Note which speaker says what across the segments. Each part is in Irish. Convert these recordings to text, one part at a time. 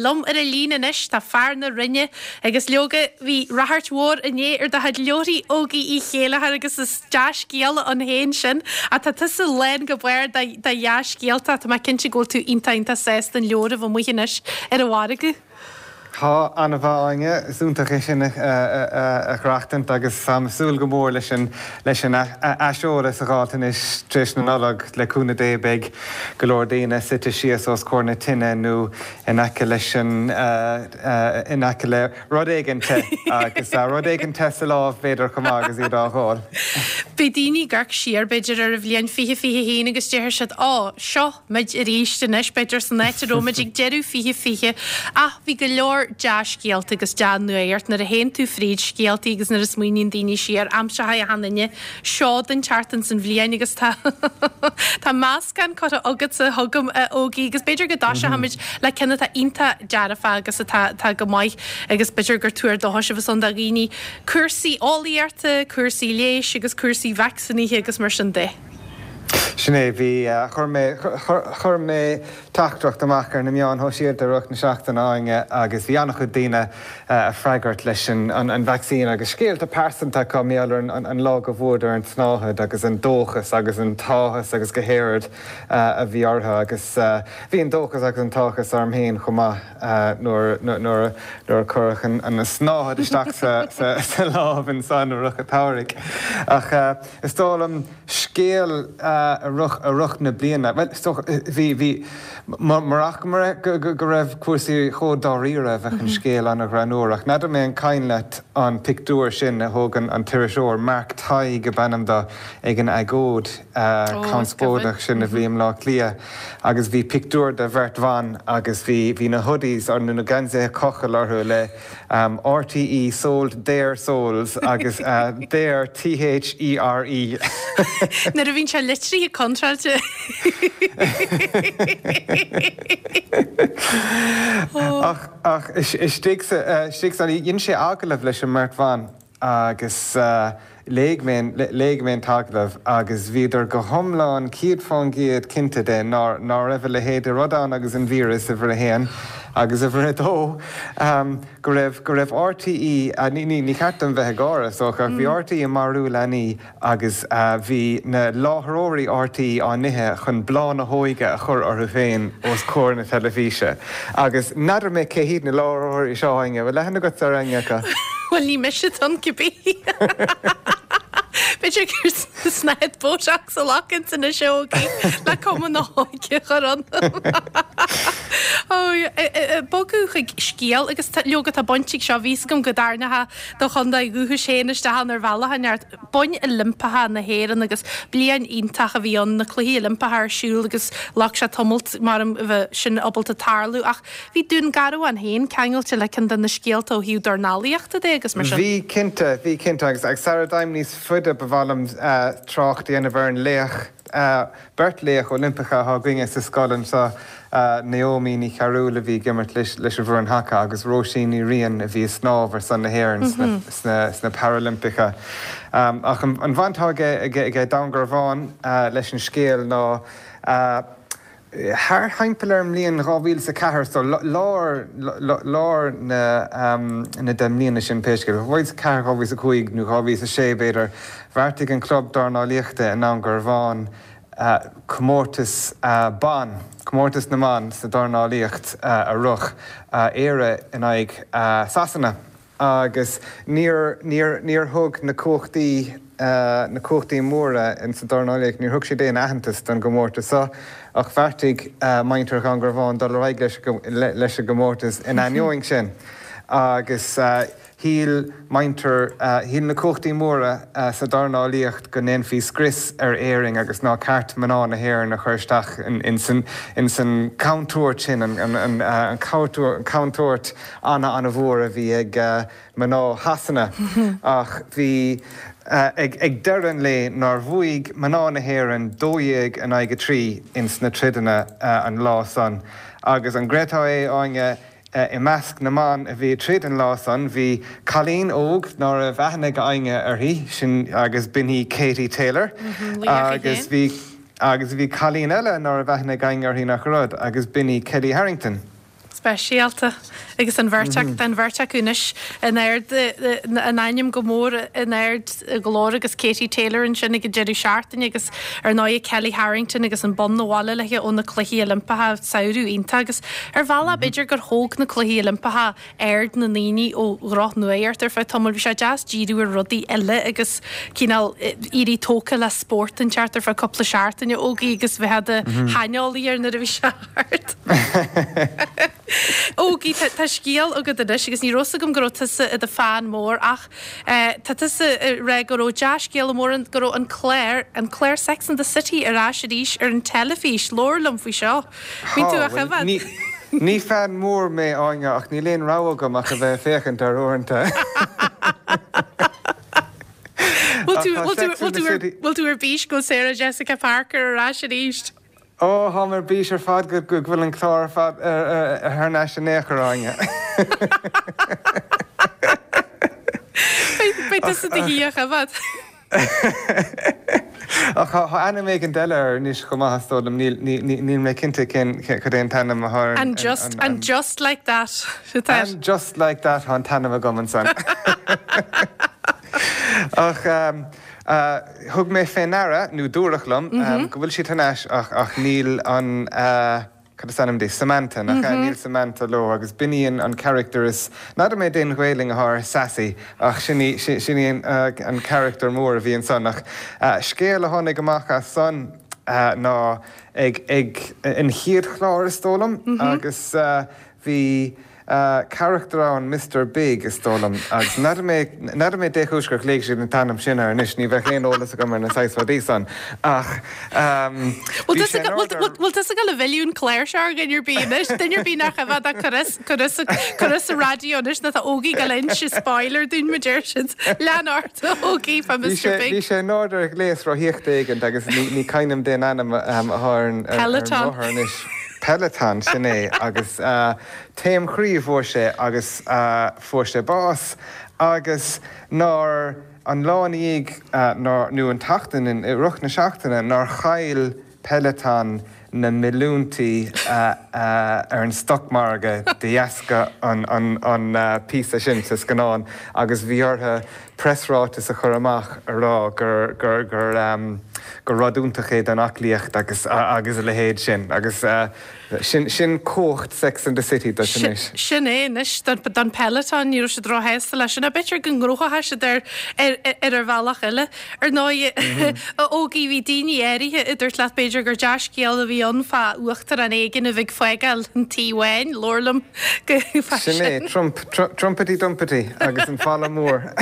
Speaker 1: Liom ar an líne anois tá fear na Rinne agus leoga bhí ráchairt mhór inné ar do chuid leabharthaí Ógie Uí Chéilleachair agus is dea-scéala ann féin sin ach tá tusa lán go barr de dhea-scéalta. Tá mé cinnte go bhfuil tú iontach iontach sásta an leabhar a bheith amuigh anois ar an mhargadh.
Speaker 2: Tá, an-mhaith Áine, is iontach é sin a aireachtaint agus táim ag súil go mór leis an leis an aiseolas a dh'fháilt anois tar éis na Nollag. Le cúnamh Dé beidh go leor daoine suite síos os comhair na tine nó in aice leis an, in aice le rud éigin te agus rud éigin te sa lámh b'fhéidir chomh maith agus iad á dh'ól.
Speaker 1: Beidh daoine ag amharc siar b'fhéidir ar an bhliain 2021 agus déarfaidh siad 'Ó, seo muid arís anois', b'fhéidir san áit a raibh muid ag deireadh 2020 ach bhí go leor dea-scéalta agus dea-nuacht nuair a théann tú fríd scéaltaí agus nuair a smaoiníonn daoine siar, aimseoidh achan duine seod inteacht ins an bhliain agus tá tá meascán curtha agatsa chugam a Ógie agus b'fhéidir go dtoiseochaimid le ceann atá iontach dearfach agus atá atá go maith agus b'fhéidir gur tuar dóchais a bheas ann do dhaoine, cúrsaí eolaíochta, cúrsaí leighis agus cúrsaí vacsaínithe agus mar sin de.
Speaker 2: Sin é, bhí, chuir mé, chuir mé teachtaireacht amach ar na meáin shóisialta i rith na seachtaine, Áine, agus bhí an-chuid daoine ag freagairt leis an vacsaín agus scéalta pearsanta acu mar gheall ar an lá go bhfuaireadar an tsnáthaid agus an dóchas agus an t-áthas agus go háirid a bhí orthu agus bhí an dóchas agus an t-áthas orm féin chomh maith nuair nuair a cuireadh an tsnáthaid isteach sa lámh ansan i rith an tsamhraidh. Ach is dóigh liom scéal a rith a rith na bliana, bhuel, is dócha, bhí, bhí, murach go raibh cúrsaí chomh dáiríre bheadh an scéal an-ghreannmhar. Ach n'fheadar mé an cuimhin leat an pictiúr sin a thóg an t-iriseoir, Mark Tighe ab ainm do, ag an agóid conspóideach sin a bhí i mBleá Cliath agus bhí pictiúr de bheirt bhan agus bhí, bhí na hoodies, nó na geansaithe cochaill orthu le RTÉ sold their souls agus their T-H-E-R-E.
Speaker 1: Nuair a bhíonn sé litrithe contráilte.
Speaker 2: Ach, ach istigh sa, istigh sa, dhein sé agallamh leis an mbeirt bhan agus Léigh mé, léigh mé an t-agallamh agus bhíodar go hiomlán 100% cinnte de ná, ná raibh a leithéid de rud ann agus an víreas, uimhir a haon, agus uimhir a dó, go raibh, go raibh RTÉ, ní, ní, ní ceart dom bheith ag gáire, is dócha, ach bhí RTÉ ag marú leanaí agus bhí na láithreoirí RTÉ á n-ithe chun bláth na hóige a chur orthu féin os comhair na teilifíse. Agus n'fheadar mé cé hiad na láithreoirí seo, Áine, bhfuil aithne agat ar éinne acu?
Speaker 1: Bhuel, ní mise atá ann cibé. B'fhéidir gur snáthaid Botox a ghlacann anois a Ógie le cuma na hóige a chur ionam. Bogadh chuig scéal agus leoga tá baint ag seo, bhí fhios agam go dtarraingeochthá do chontae dhúchais féin isteach ann ar bhealach inteacht. Boinn Oilimpeacha na hÉireann agus bliain iontach a bhí ann, na Cluichí Oilimpeacha ar siúl agus ghlac sé tamalt mar a bheith sin ábalta tarlú ach Bhí Dún Garbhán féin ceangailte le ceann de na scéalta ó thaobh dornálaíochta de agus mar sin.
Speaker 2: Bhí cinnte, bhí cinnte agus agus sara dtéim níos faide ba mhaith liom trácht a dhéanamh ar an laoch, beirt laoch Oilimpeacha atá againne sa scoil anseo, Naomi Ní Chearúil a bhí ag imirt leis an bhfoireann haca agus Róisín Ní Riain a bhí ag snámh ar son na hÉireann sna sna Parailimpeacha. Ach an bhaint atá aige aige Dún Garbhán leis an scéal ná, Thart thimpeall ar an mbliain 2004, so lár, lár na, na deich mbliana sin pé scéal, 2004, 2005 nó 2006 b'fhéidir, bheartaigh an club dornálaíochta i nDún Garbhán comórtas ban, comórtas na mban sa dornálaíocht a rith, Éire in aghaidh Sasana. Agus níor, níor, níor thug na cumhachtaí, na cumhachtaí móra in sa dornálaíocht, níor thug siad aon aitheantas don gcomórtas seo, ach bheartaigh muintir Dhún Garbhán dul ar aghaidh leis, leis an gcomórtas in ainneoin sin. Agus shíl muintir, shíl na cumhachtaí móra sa dornálaíocht go ndéanfaí scrios ar Éirinn agus nár cheart mná na hÉireann a chur isteach in san, in san chontúirt sin, an, an, an chontúirt ana-ana-mhór a bhí ag mná Shasana ach bhí ag deireadh an lae nár bhuaigh mná na hÉireann 12 in aghaidh 3 ins na troideanna an lá san. Agus an gcreidfeá é, Áine, i measc na mban a bhí ag troid an lá san bhí cailín óg ná raibh aithne ag éinne uirthi, sin agus b'in í Katie Taylor agus bhí agus bhí cailín eile ná raibh aithne ag éinne uirthi nach rud agus b'in í Kellie Harrington.
Speaker 1: Speisialta. Agus an bheirt acu, tá an bheirt acu anois in ard, a n-ainm go mór in ard a nglór agus Katie Taylor ansin ag an deireadh seachtaine agus ar ndóigh Kellie Harrington agus an bonn abhaile léi ó na Cluichí Oilimpeacha, samhradh iontach agus ar bhealach b'fhéidir gur thóg na Cluichí Oilimpeacha aird na ndaoine ó dhrochnuacht ar feadh tamaill. Bhí sé deas díriú ar rudaí eile agus cineál éirí tógtha le spórt inteacht ar feadh cúpla seachtaine, Ógie, agus bheith i do shaineolaí air nuair a bhí sé thart. Ógie, tá scéal agat anois agus ní raibh 'fhios agam go raibh tusa i do fan mór ach tá tusa ag rá go raibh dea-scéala mór ann, go raibh an clár, an clár Sex and the City ar ais arís ar an teilifís. Labhair liom faoi seo. Bíonn tú á choimhéad.
Speaker 2: Ní fan mór mé, Áine, ach níl aon rogha agam ach a bheith ag féachaint air uaireanta.
Speaker 1: Bhfuil tú ar bís go bhfuil Sarah Jessica Parker ar ais arís?
Speaker 2: Ó, táim ar bís ar fad go bhfuil an clár ar fad thar n-ais in aon chor, Áine.
Speaker 1: Beidh tusa i do shuí á choimhéad.
Speaker 2: Ach tá ainm éigint eile air anois chomh maith, is dóigh liom. Níl mé cinnte cén, cad é an t-ainm atá ar an.
Speaker 1: And just, and just like that atá air.
Speaker 2: And just like that tá an t-ainm agam ansan. Ach thug mé fé ndeara, nó dúradh liom, go bhfuil siad thar n-ais ach níl an. Cad is ainm di? Samantha, nach ea? Níl Samantha leo agus b'in í an charachtar is, n'fheadar mé dén Ghaelainn athá ar Sassy ach sin í, sin í an charachtar mór a bhí ansan. Ach scéal a tháinig amach as san ná ag, ag an chéad chlár is dóigh liom agus bhí, carachtar ann, Mister Big, is dóigh liom, agus n'fheadar mé, n'fheadar mé dé chúis gur ghlaoigh siad an t-ainm sin air anois, ní bheadh aon eolas agam ar na saghas rudaí san, ach
Speaker 1: bhí sé in ord ar. Bhfuil tusa ag dul a mhilleadh an clár seo ar dhuine ar bith anois, duine ar bith nach bhfeadfadh ach cur as, cur as, cur as an raidió anois nó tá Ógie ag dul a inse spoiler dúinn, mar deir siad. Lean ort, a Ógie, fá Mister Big.
Speaker 2: Bhí sé in ord ar ghléas rothaíochta éigint agus ní, ní cuimhin liom dén ainm atá ar an, ar an rothar anois. Peloton, sin é, agus taom chroí a fuair sé agus fuair sé bás agus nár, an lá ina dhiaidh, nár, nó an tseachtain, i rith na seachtaine, nár chaill Peloton na milliúintí ar an stocmhargadh de dheasca an píosa sin sa scannán agus bhí orthu preasráiteas a chur amach a rá gur gur gur gur rud iontach é don aclaíocht agus agus a leithéid sin agus sin sin cumhacht Sex and the City duit anois.
Speaker 1: Sin é anois don Peloton, ní raibh siad róshásta leis sin. B'fhéidir go ngnóthóidh siad ar ar ar bhealach eile. Ar ndóigh, a Ógie, bhí daoine áirithe a dúirt leat b'fhéidir gur dea-scéal a bhí ann fá uachtarán éigin a bheith ag fágáil an Tí Bháin, labhair liom
Speaker 2: fá sin. Sin é, Trump, Trumpity Dumpity agus an falla mór.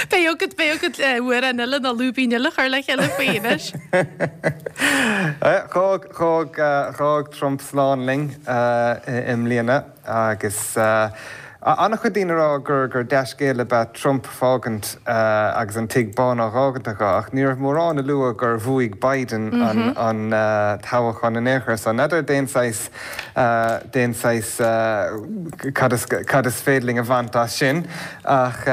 Speaker 1: Beidh agat, beidh agat amhrán eile nó lúibín eile a chur le chéile faoi anois.
Speaker 2: D'fhág, d'fhág, d'fhág Trump slán linn i mbliana agus an-chuid daoine ag rá gur, gur dea-scéal ab ea Trump fágaint agus an Tigh Bán á dh'fhágaint aige ach ní raibh mórán a lua gur bhuaigh Biden an, an toghchán in aon chor so n'fheadar dén saghas dén saghas cad is cad is féidir linn a bhaint as sin ach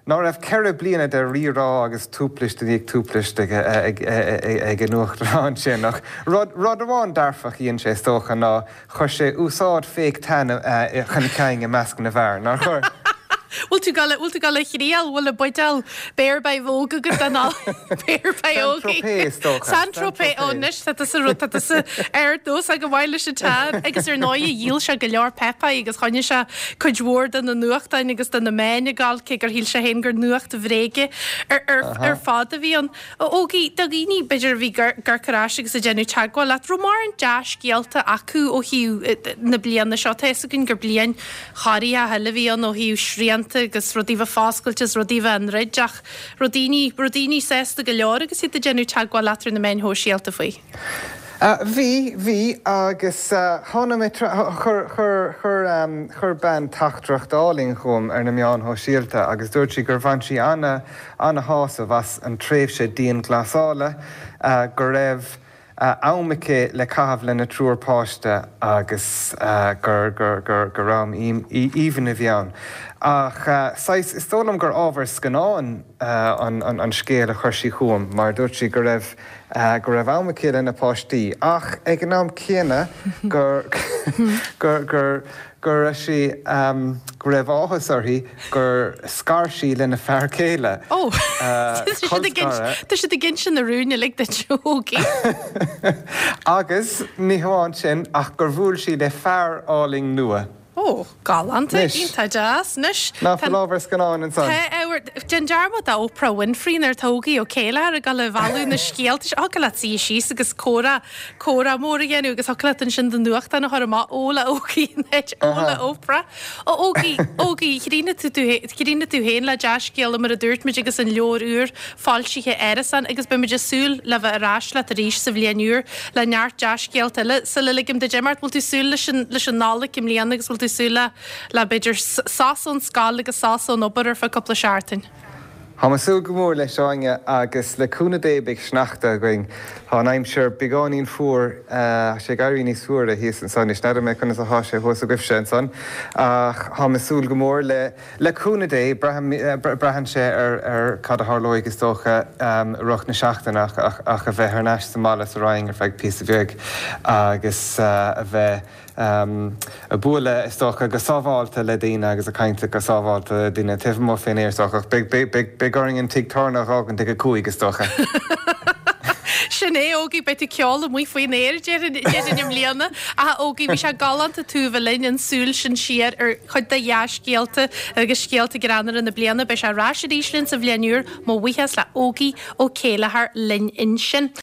Speaker 2: ná raibh 4 bliana de rírá agus tuaiplis i ndiaidh tuaiplis ag ag an uachtarán sin ach rud rud amháin dearfach a dhein sé is dócha ná Chuir sé úsáid fake tan chun cinn i measc na bhfear, nár chuir?
Speaker 1: Bhfuil tú ag bhfuil tú ag dul a thriail, bhfuil an buidéal Bear by Vogue agat den Bear by
Speaker 2: Ógie? Saint-Tropez, is dócha.
Speaker 1: Saint-Tropez, ó anois tá tusa rud, tá tusa ar nós go maith leis an tan. Agus ar ndóigh dhíol sé go leor páipéir agus choinnigh sé cuid mhór de na nuachtáin agus de na meáin ag gabháil cé gur shíl sé féin gur nuacht bhréige ar, ar, ar fad a bhí ann. A Ógie, do dhaoine, b'fhéidir, a bhí ag amharc ar ais agus ag déanamh teagmháil leat, raibh mórán dea-scéalta acu ó thaobh na bliana seo? Tá a fhios againn gur bliain chorraitheach eile a bhí ann ó thaobh srianta agus rudaí bheith foscailte is rudaí bheith á ndruid ach raibh daoine, raibh daoine sásta go leor agus iad ag déanamh teagmháil leat ar na meáin shóisialta faoi?
Speaker 2: Bhí, bhí agus tháinig mé, chuir, chuir, chuir, chuir bean teachtaireacht álainn chugam ar na meáin shóisialta agus dúirt sí gur bhain sí ana, ana-shásamh as an tréimhse dianghlasála, go raibh. am aici le caitheamh lena triúr páiste agus gur, gur, gur, gur am aoibhinn a bhí ann. Ach saghas, is dóigh liom gur ábhar scannáin an, an, an scéal a chuir sí chugam mar dúirt sí go raibh, go raibh am aici lena páistí ach ag an am céanna gur, gur, gur, go raibh sí, go raibh áthas uirthi gur scar sí lena fear céile.
Speaker 1: Ó! Tá siad ag inse na rúin uilig duit, a Ógie.
Speaker 2: Agus ní hamháin sin ach gur bhuail sí le fear álainn nua.
Speaker 1: Ó, galánta, iontach deas.
Speaker 2: Anois, Ná fuil ábhar scannáin ansan?
Speaker 1: Tá ábhar, déan dearmad d'Oprah Winfrey nuair atá Ógie Ó Céilleachair ag dul a bhailiú na scéalta seo. Thiocfadh leat suí síos agus comhrá Comhrá mór a dhéanamh agus thiocfadh leat ansin do nuachtán a chur amach, Ó le Ógie in áit Ó le Oprah. Ó Ógie, Ógie, chríochnaigh tú tú chríochnaigh tú féin le dea-scéala mar a dúirt muid agus an leabhar úr foilsithe Árasán agus beidh muid ag súil le bheith ar ais leat arís sa bhliain úr le neart dea-scéalta eile. Sula ligim duit imeacht, bhfuil tú súil leis an leis an Nollaig i mbliana agus bhfuil tú súil le le b'fhéidir sos ón scoil agus sos ón obair ar feadh cúpla seachtain?
Speaker 2: Táim ag súil go mór leis, Áine, agus le cúnamh Dé beidh sneachta againn. Tá an aimsir beagáinín fuar, tá sé ag éirí níos fuaire thíos anso anois. N'fheadar mé conas atá sé thuas agaibhse ansan, ach táim ag súil go mór le, le cúnamh Dé, braithim, braitheann sé ar, ar cad a tharlóidh is dócha i rith na seachtaine ach, ach, ach a bheith thar n-ais sa mbaile sa Rinn ar feadh píosa bheag agus a bheith, ag bualadh, is dócha, go sábháilte le daoine agus ag caint go sábháilte le daoine taobh amuigh fén aer, is dócha, ach beidh orainn an tigh tábhairne a dh'fhágaint ag a cúig, is dócha.
Speaker 1: Sin é, Ógie, beidh tú ag ceol amuigh faoin aer, déarfainn, i mbliana. Ach, Ógie, bhí sé galánta tú a bheith linn, an súil sin siar ar chuid de dhea-scéalta agus scéalta greannmhara na bliana. Beidh sé ar ais arís linn sa bhliain úr. Mo bhuíochas le Ógie Ó Céilleachair linn ansin.